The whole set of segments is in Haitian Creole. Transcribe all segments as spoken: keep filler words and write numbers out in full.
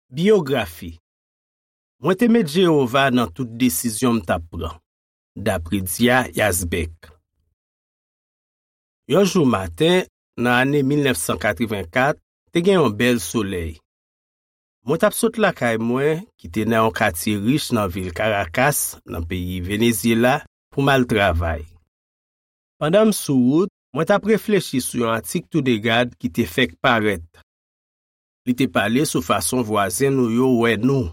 Biyografi. Mwen te met Jewova nan tout desizyon m t ap pran, dapre Dia Yazbek. Yon jou maten, nan ane mil nèf san katrevenkat, te gen yon bèl solèy. Mwen t ap sot lakay mwen, ki te nan yon katye rich nan vil Karakas, nan peyi Venezyela, pou m al travay. Pandan m sou wout, mwen t ap reflechi sou yon atik Toudegad ki te fèk parèt. Li te pale sou fason vwazen nou yo wè nou.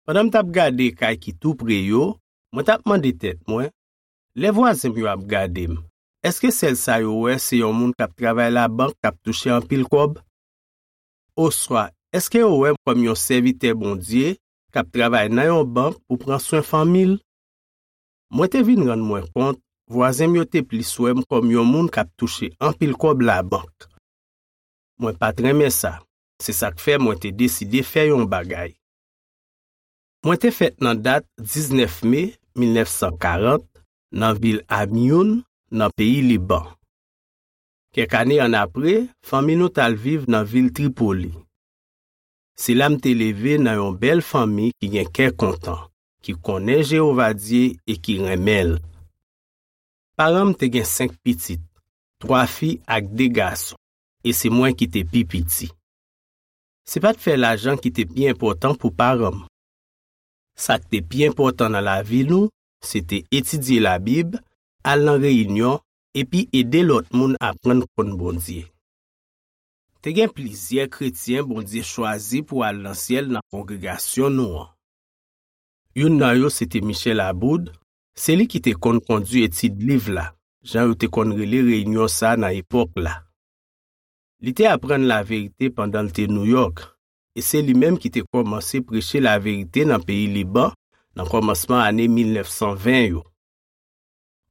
Pandan m t ap gade kay ki tou pre yo, mwen t ap mande tèt mwen, lè vwazen m yo ap gade m, èske sèl sa yo wè se yon moun k ap travay labank k ap touche anpil kòb? Oswa, èske yo wè m kòm yon sèvitè Bondye k ap travay nan yon bank pou pran swen fanmi l? Mwen te vin rann mwen kont, vwazen m yo te plis wè m kòm yon moun k ap touche anpil kòb labank. Mwen pa t renmen sa. Se sa k fè mwen te deside fè yon bagay. Mwen te fèt nan dat diznèf me mil nèf san karant nan vil Amiyoun, nan peyi Liban. Kèk ane annapre, fanmi nou t al viv nan vil Tripoli. Se la m te leve nan yon bèl fanmi ki gen kè kontan, ki konnen Jewova Dye e ki renmen l. Paran m te gen senk pitit, twa fi ak de gason, e se mwen ki te pi piti. Se pa t fè lajan ki te pi enpòtan pou paran m. Sa k te pi enpòtan nan lavi nou, se te etidye Labib, al nan reyinyon, epi ede lòt moun aprann konn Bondye. Te gen plizyè kretyen Bondye chwazi pou al nan syèl nan kongregasyon nou an. Youn nan yo se te Michel Aboud, se li ki te konn kondui etid liv la, jan yo te konn rele reyinyon sa a nan epòk la. Li te aprann laverite pandan l te Nouyòk, e se li menm ki te kòmanse preche laverite nan peyi Liban nan kòmansman ane mil nèf san ven yo.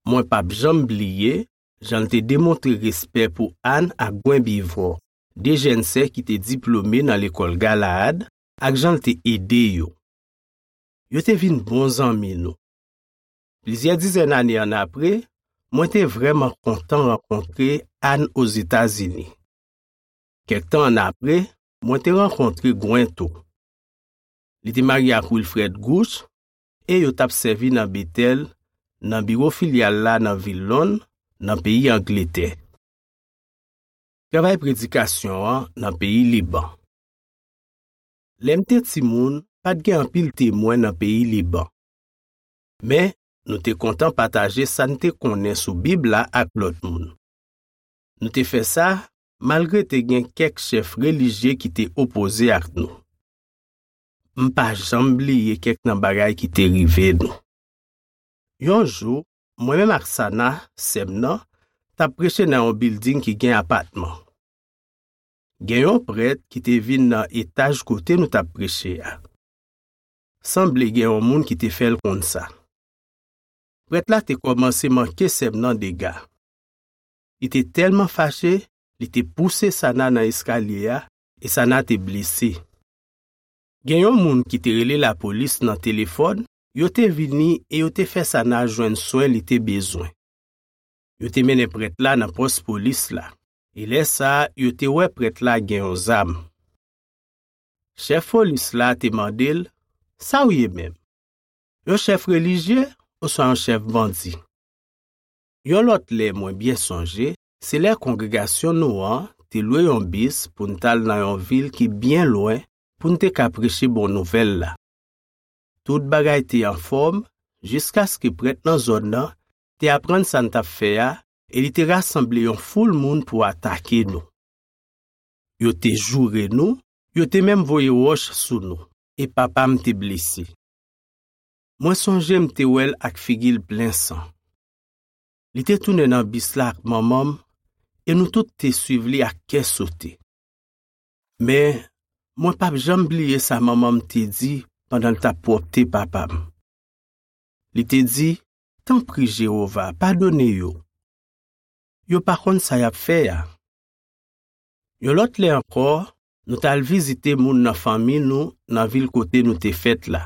Mwen p ap janm bliye jan l te demontre respè pou Ann ak Gwen Bivò, de jèn sè ki te diplome nan lekòl Galaad, ak jan l te ede yo. Yo te vin bon zanmi nou. Plizyè dizèn ane annapre, mwen te vrèman kontan rankontre Ann Ozetazini. Kèk tan annapre, mwen te rankontre Gwen tou. Li te marye ak Wilfred Gooch e yo t ap sèvi nan Betèl, nan biwo filyal la nan vil Lonn, nan peyi Angletè. Travay predikasyon an nan peyi Liban. Lè m te timoun, pa t gen anpil Temwen nan peyi Liban. Men, nou te kontan pataje sa n te konnen sou Bib la ak lòt moun. Nou te fè sa malgre te gen kèk chèf relijye ki te opoze ak nou. M pa janm bliye kèk nan bagay ki te rive nou. Yon jou, mwen menm ak Sana, sè m nan, t ap preche nan yon bilding ki gen apatman. Gen yon prèt ki te vin nan etaj kote nou t ap preche a. Sanble gen yon moun ki te fè l konn sa. Prèt la te kòmanse manke sè m nan dega. Li te tèlman fache, li te pouse Sana nan eskalye a, e Sana te blese. Gen yon moun ki te rele lapolis nan telefòn, yo te vini e yo te fè Sana jwenn swen li te bezwen. Yo te mennen prèt la nan pòs polis la, e lè sa a, yo te wè prèt la gen yon zam. Chèf polis la te mande l, "Sa w ye menm? Yon chèf relijye oswa yon chèf bandi?" Yon lòt lè mwen byen sonje, se lè kongregasyon nou an te lwe yon bis pou n t al nan yon vil ki byen lwen pou n te ka preche bon nouvèl la. Tout bagay te anfòm jiskaske prèt nan zòn nan te aprann sa n t ap fè a e li te rasanble yon foul moun pou atake nou. Yo te joure nou, yo te menm voye wòch sou nou, e papa m te blese. Mwen sonje m te wè l ak figi l plen san. Li te tounen nan bis la ak manman m, e nou tout te swiv li ak kè sote. Men, mwen p ap janm bliye sa manman m te di pandan l t ap pwòpte papa m. Li te di, "Tanpri, Jewova, padone yo. Yo pa konn sa y ap fè a." Yon lòt lè ankò, nou t al vizite moun nan fanmi nou nan vil kote nou te fèt la.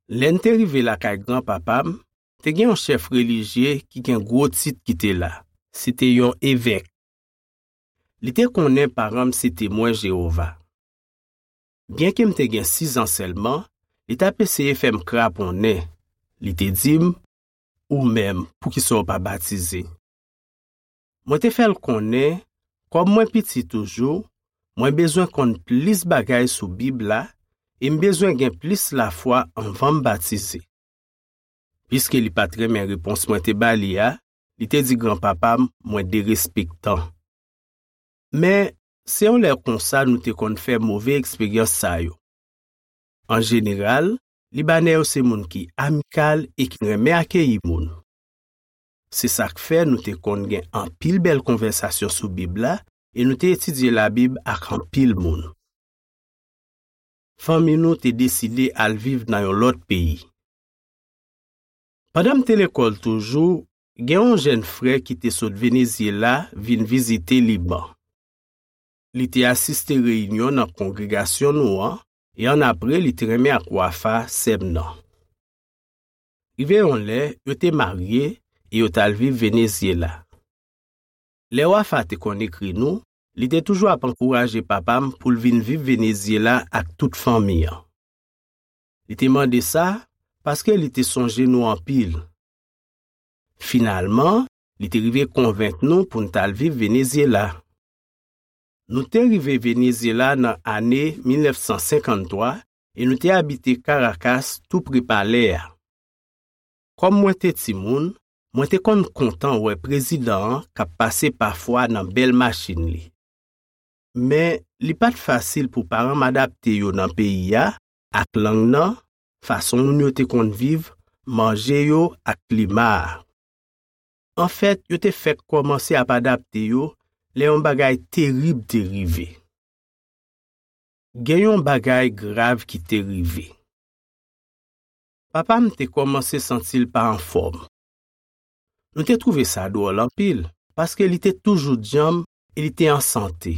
Lè n te rive lakay granpapa m, te gen yon chèf relijye ki gen gwo tit ki te la. Se te yon evèk. Li te konnen paran m se Temwen Jewova. byenke m te gen sizan sèlman, li t ap eseye fè m kraponnen. Li te di m, "Ou menm, poukisa w pa batize?" Mwen te fè l konnen, kòm mwen piti toujou, mwen bezwen konn plis bagay sou Bib la e m bezwen gen plis lafwa anvan m batize. Piske li pa t renmen repons mwen te ba li a, li te di granpapa m mwen derespektan. Men, se yon lè konsa nou te konn fè move eksperyans sa yo. An jeneral, Libanè yo se moun ki amikal e ki renmen akeyi moun. Se sa k fè nou te konn gen anpil bèl konvèsasyon sou Bib la e nou te etidye Labib ak anpil moun. Fanmi nou te deside al viv nan yon lòt peyi. Pandan m te lekòl toujou, gen yon jèn frè ki te sot Venezyela vin vizite Liban. Li te asiste reyinyon nan kongregasyon nou an, e annapre li te renmen ak Wafa, sè m nan. Rive yon lè, yo te marye e yo t al viv Venezyela. Lè Wafa te konn ekri nou, li te toujou ap ankouraje papa m pou l vin viv Venezyela ak tout fanmi an. Li te mande sa paske li te sonje nou anpil. Finalman, li te rive konvenk nou pou n t al viv Venezyela. Nou te rive Venezyela nan ane mil nèf san senkanntwa e nou te abite Karakas, tou pre palè a. Kòm mwen te timoun, mwen te konn kontan wè prezidan an k ap pase pafwa nan bèl machin li. Men, li pa t fasil pou paran m adapte yo nan peyi a, ak lang nan, fason moun yo te konn viv, manje yo ak klima a. Anfèt, yo te fèk kòmanse ap adapte yo lè yon bagay terib te rive. Gen yon bagay grav ki te rive. Papa m te kòmanse santi l pa anfòm. Nou te twouve sa dwòl anpil, paske li te toujou djanm e li te an sante.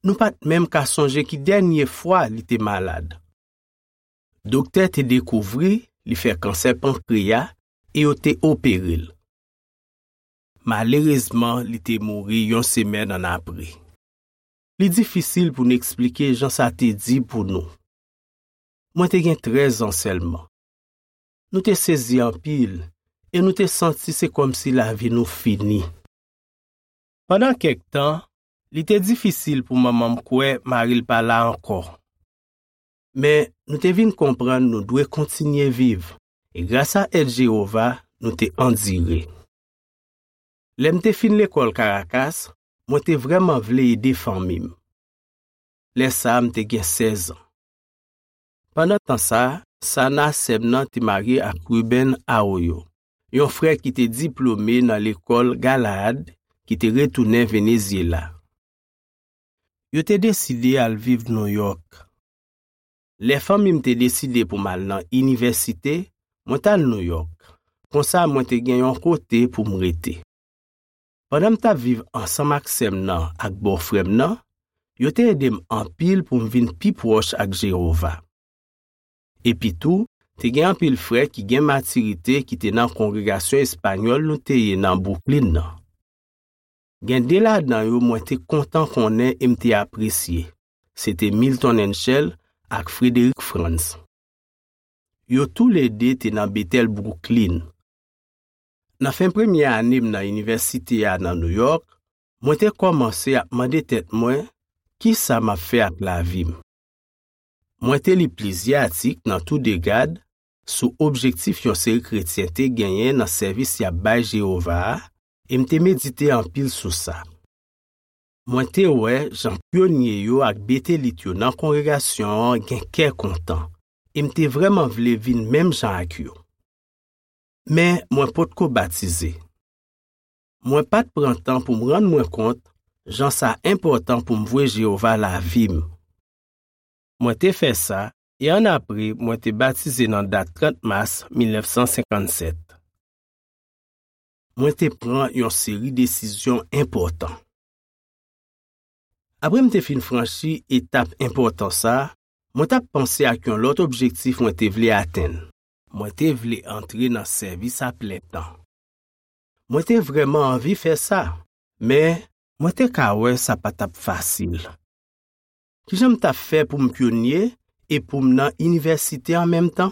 Nou pa t menm ka sonje ki dènye fwa li te malad. Doktè te dekouvri li fè kansè pankreya e yo te opere l. Malerezman, li te mouri yon semèn annapre. Li difisil pou n eksplike jan sa te di pou nou. Mwen te gen trèz an sèlman. Nou te sezi anpil e nou te santi se kòmsi lavi nou fini. Pandan kèk tan, li te difisil pou manman m kwè mari l pa la ankò. Men, nou te vin konprann nou dwe kontinye viv, e grasa èd Jewova, nou te andire. Lè m te fin lekòl Karakas, mwen te vrèman vle ede fanmi m. Lè sa a, m te gen sèz an. Pandan tan sa a, Sana, sè m nan, te marye ak Ruben Arroyo, yon frè ki te diplome nan lekòl Galaad ki te retounen Venezyela. Yo te deside al viv Nouyòk. Lè fanmi m te deside pou m al nan inivèsite, mwen t al Nouyòk. Konsa, mwen te gen yon kote pou m rete. Pandan m t ap viv ansanm ak sè m nan ak bòfrè m nan, yo te ede m anpil pou m vin pi pwòch ak Jewova. Epitou, te gen anpil frè ki gen matirite ki te nan kongregasyon espanyòl nou te ye nan Bwouklin nan. Gen de ladan yo mwen te kontan konnen e m te apresye. Se te Milton Henschel ak Frederick Franz. Yo toulede te nan Betèl Bwouklin. Nan fen premye ane m nan inivèsite a nan Nouyòk, mwen te kòmanse ap mande tèt mwen, "Kisa m ap fè ak lavi m?" Mwen te li plizyè atik nan Toudegad sou objektif yon seri kretyen te genyen nan sèvis y ap bay Jewova a, e m te medite anpil sou sa. Mwen te wè jan pyonye yo ak betelit yo nan kongregasyon an gen kè kontan, e m te vrèman vle vin menm jan ak yo. Men mwen potko batize. Mwen pa t pran tan pou m rann mwen kont jan sa enpòtan pou m vwe Jewova lavi m. Mwen te fè sa, e annapre mwen te batize nan dat trant mas mil nèf san senkann sèt. Mwen te pran yon seri desizyon enpòtan. Apre m te fin franchi etap enpòtan sa a, mwen t ap panse ak yon lòt objektif mwen te vle atenn. Mwen te vle antre nan sèvis a plen tan. Mwen te vrèman anvi fè sa, men mwen te ka wè sa pa t ap fasil. Ki jan m t ap fè pou m pyonye e pou m nan inivèsite an menm tan?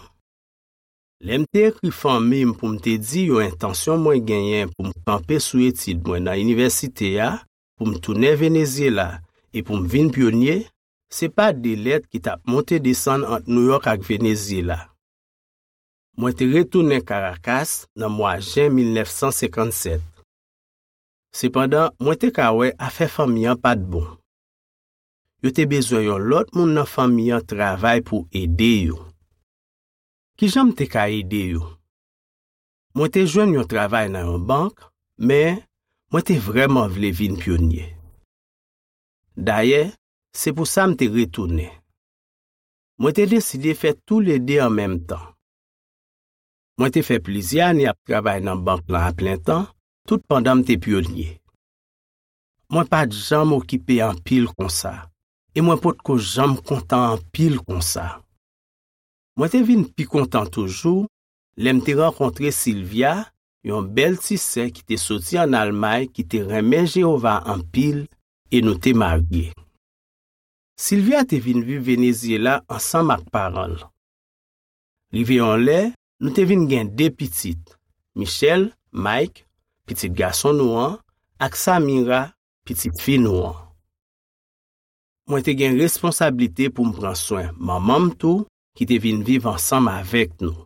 Lè m te ekri fanmi m pou m te di yo entansyon mwen genyen pou m kanpe sou etid mwen nan inivèsite a, pou m tounen Venezyela e pou m vin pyonye, se pa de lèt ki t ap monte desann ant Nouyòk ak Venezyela. Mwen te retounen Karakas nan mwa jen mil nèf san senkann sèt. Sepandan, mwen te ka wè afè fanmi an pa t bon. Yo te bezwen yon lòt moun nan fanmi an travay pou ede yo. Ki jan m te ka ede yo? Mwen te jwenn yon travay nan yon bank, men mwen te vrèman vle vin pyonye. Dayè, se pou sa m te retounen. Mwen te deside fè toulede an menm tan. Mwen te fè plizyè ane ap travay nan bank lan aplentan, tout pandan m te pyonye. Mwen pa t janm okipe anpil konsa, e mwen potko janm kontan anpil konsa. Mwen te vin pi kontan toujou lè m te rankontre Silvia, yon bèl ti sè ki te soti ann Almay ki te renmen Jewova anpil, e nou te marye. Silvia te vin viv Venezyela ansanm ak paran l. Rive yon lè, nou te vin gen de pitit, Michel, Mike, pitit gason nou an, ak Samira, pitit fi nou an. Mwen te gen responsablite pou m pran swen manman m tou, ki te vin viv ansanm avèk nou.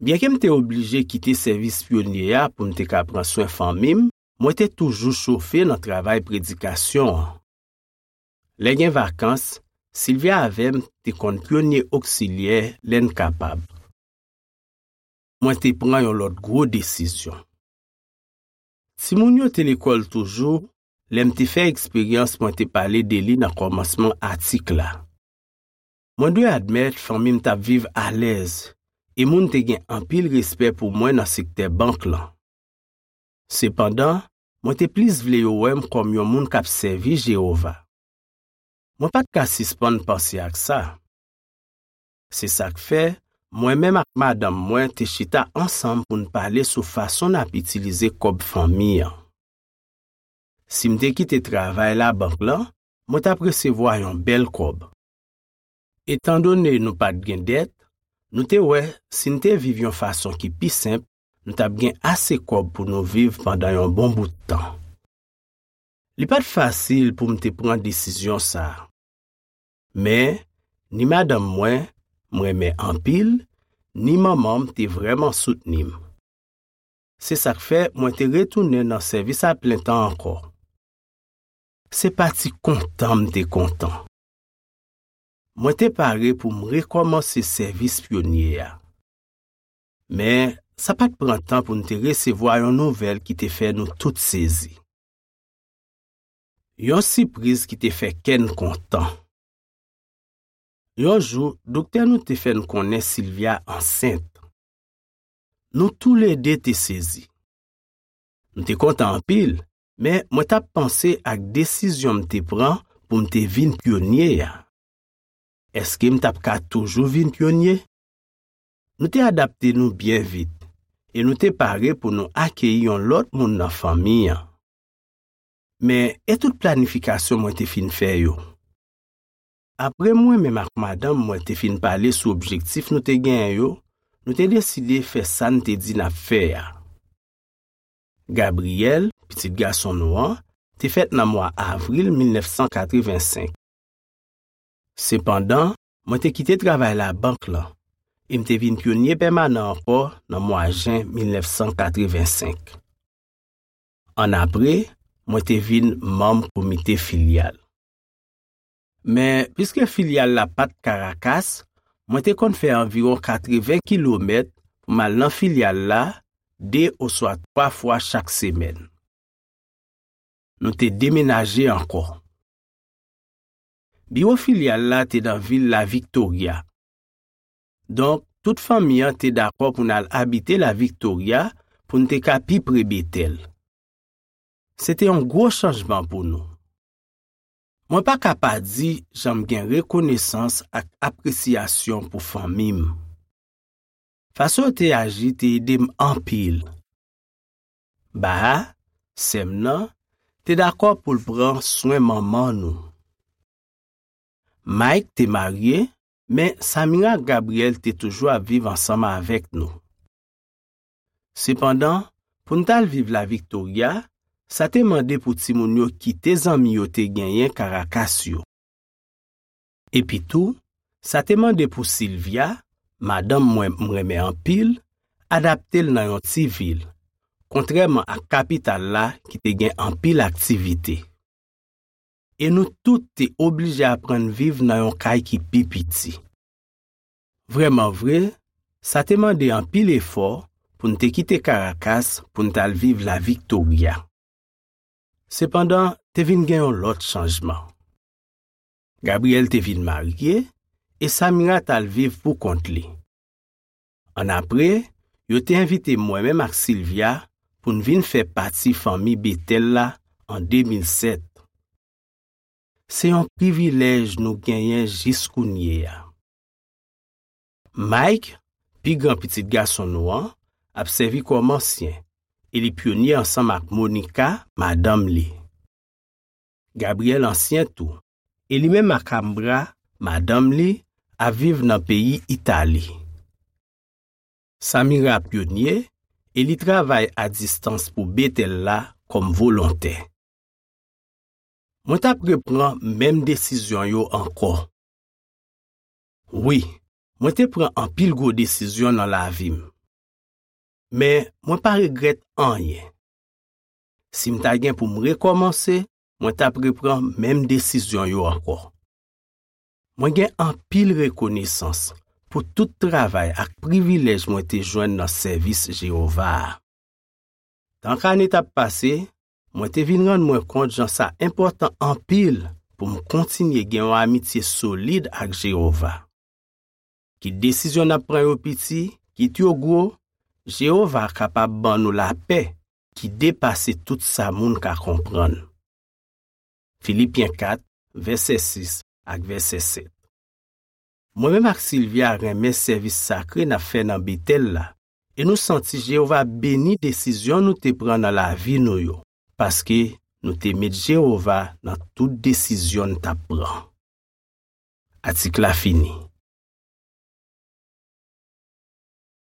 Byenke m te oblije kite sèvis pyonye a pou m te ka pran swen fanmi m, mwen te toujou chofe nan travay predikasyon an. Lè gen vakans, Silvia avè m te konn pyonye oksilyè lè n kapab. Mwen te pran yon lòt gwo desizyon. Timoun yo te lekòl toujou lè m te fè eksperyans mwen te pale de li nan kòmansman atik la. Mwen dwe admèt fanmi m t ap viv alèz, e moun te gen anpil respè pou mwen nan sektè bank lan. Sepandan, mwen te plis vle yo wè m kòm yon moun k ap sèvi Jewova. Mwen pa t ka sispann panse ak sa. Se sa k fè, mwen menm ak madanm mwen te chita ansanm pou n pale sou fason n ap itilize kòb fanmi an. Si m te kite travay labank lan, mwen t ap resevwa yon bèl kòb. Etandone nou pa t gen dèt, nou te wè si n te viv yon fason ki pi senp, nou t ap gen ase kòb pou nou viv pandan yon bon bout tan. Li pa t fasil pou m te pran desizyon sa a. Men, ni madanm mwen, m renmen anpil, ni manman m te vrèman soutni m. Se sa k fè mwen te retounen nan sèvis aplentan ankò. Se pa ti kontan m te kontan. Mwen te pare pou m rekòmanse sèvis pyonye a. Men, sa pa t pran tan pou n te resevwa yon nouvèl ki te fè nou tout sezi. Yon sipriz ki te fè kè n kontan. Yon jou, doktè nou te fè n konnen Silvia ansent. Nou toulede te sezi. M te kontan anpil, men mwen t ap panse ak desizyon m te pran pou m te vin pyonye a. Èske m t ap ka toujou vin pyonye? Nou te adapte nou byen vit, e nou te pare pou nou akeyi yon lòt moun nan fanmi an. Men, e tout planifikasyon mwen te fin fè yo? Apre mwen menm ak madanm mwen te fin pale sou objektif nou te genyen yo, nou te deside fè sa n te di n ap fè a. Gabriel, pitit gason nou an, te fèt nan mwa avril mil nèf san katreven senk. Sepandan, mwen te kite travay labank lan e m te vin pyonye pèmanan ankò nan mwa jen mil nèf san katreven senk. Annapre, mwen te vin manm komite filyal. Men, piske filyal la pa t Karakas, mwen te konn fè anviwon katreven kilomèt pou m al nan filyal la de oswa twa fwa chak semèn. Nou te demenaje ankò. Biwo filyal la te nan vil La Victoria. Donk, tout fanmi an te dakò pou n al abite La Victoria pou n te ka pi pre Betèl. Se te yon gwo chanjman pou nou. Mwen pa ka pa di jan m gen rekonesans ak apresyasyon pou fanmi m. Fason yo te aji te ede m anpil. Baha, sè m nan, te dakò pou l pran swen manman nou. Mike te marye, men Samira ak Gabriel te toujou ap viv ansanm avèk nou. Sepandan, pou n t al viv La Victoria, sa te mande pou timoun yo kite zanmi yo te genyen Caracas yo. Epitou, sa te mande pou Sylvia, madanm mwen m renmen anpil, adapte l nan yon ti vil, kontrèman ak kapital la ki te gen anpil aktivite. E nou tout te oblije aprann viv nan yon kay ki pi piti. Vrèman vre, sa te mande anpil efò pou n te kite Caracas pou n t al viv La Victoria. Sepandan, te vin gen yon lòt chanjman. Gabriel te vin marye e Samira t al viv pou kont li. Annapre, yo te envite mwen menm ak Sylvia pou n vin fè pati fanmi Betèl la an de mil sèt. Se yon privilèj nou genyen jis kounye a. Mike, pi gran pitit gason nou an, ap sèvi kòm ansyen, e li pyonye ansanm ak Monica, madanm li. Gabriel ansyen tou, e li menm ak Ambra, madanm li, ap viv nan peyi Itali. Samira pyonye, e li travay a distans pou Betèl la kòm volontè. Mwen t ap reprann menm desizyon yo ankò. Wi, mwen te pran anpil gwo desizyon nan lavi m. Men, mwen pa regrèt anyen. Si m ta gen pou m rekòmanse, mwen t ap reprann menm desizyon yo ankò. Mwen gen anpil rekonesans pou tout travay ak privilèj mwen te jwenn nan sèvis Jewova a. Tan k ane t ap pase, mwen te vin rann mwen kont jan sa enpòtan anpil pou m kontinye gen yon amitye solid ak Jewova. Kit desizyon n ap pran yo piti, kit yo gwo, Jewova kapab ban nou lapè ki depase tout sa moun ka konprann. Filipyen kat, vèsè sis ak vèsè sèt. Mwen menm ak Sylvia renmen sèvis sakre n ap fè nan Betèl la, e nou santi Jewova beni desizyon nou te pran nan lavi nou yo, paske nou te met Jewova nan tout desizyon n t ap pran. Atik la fini.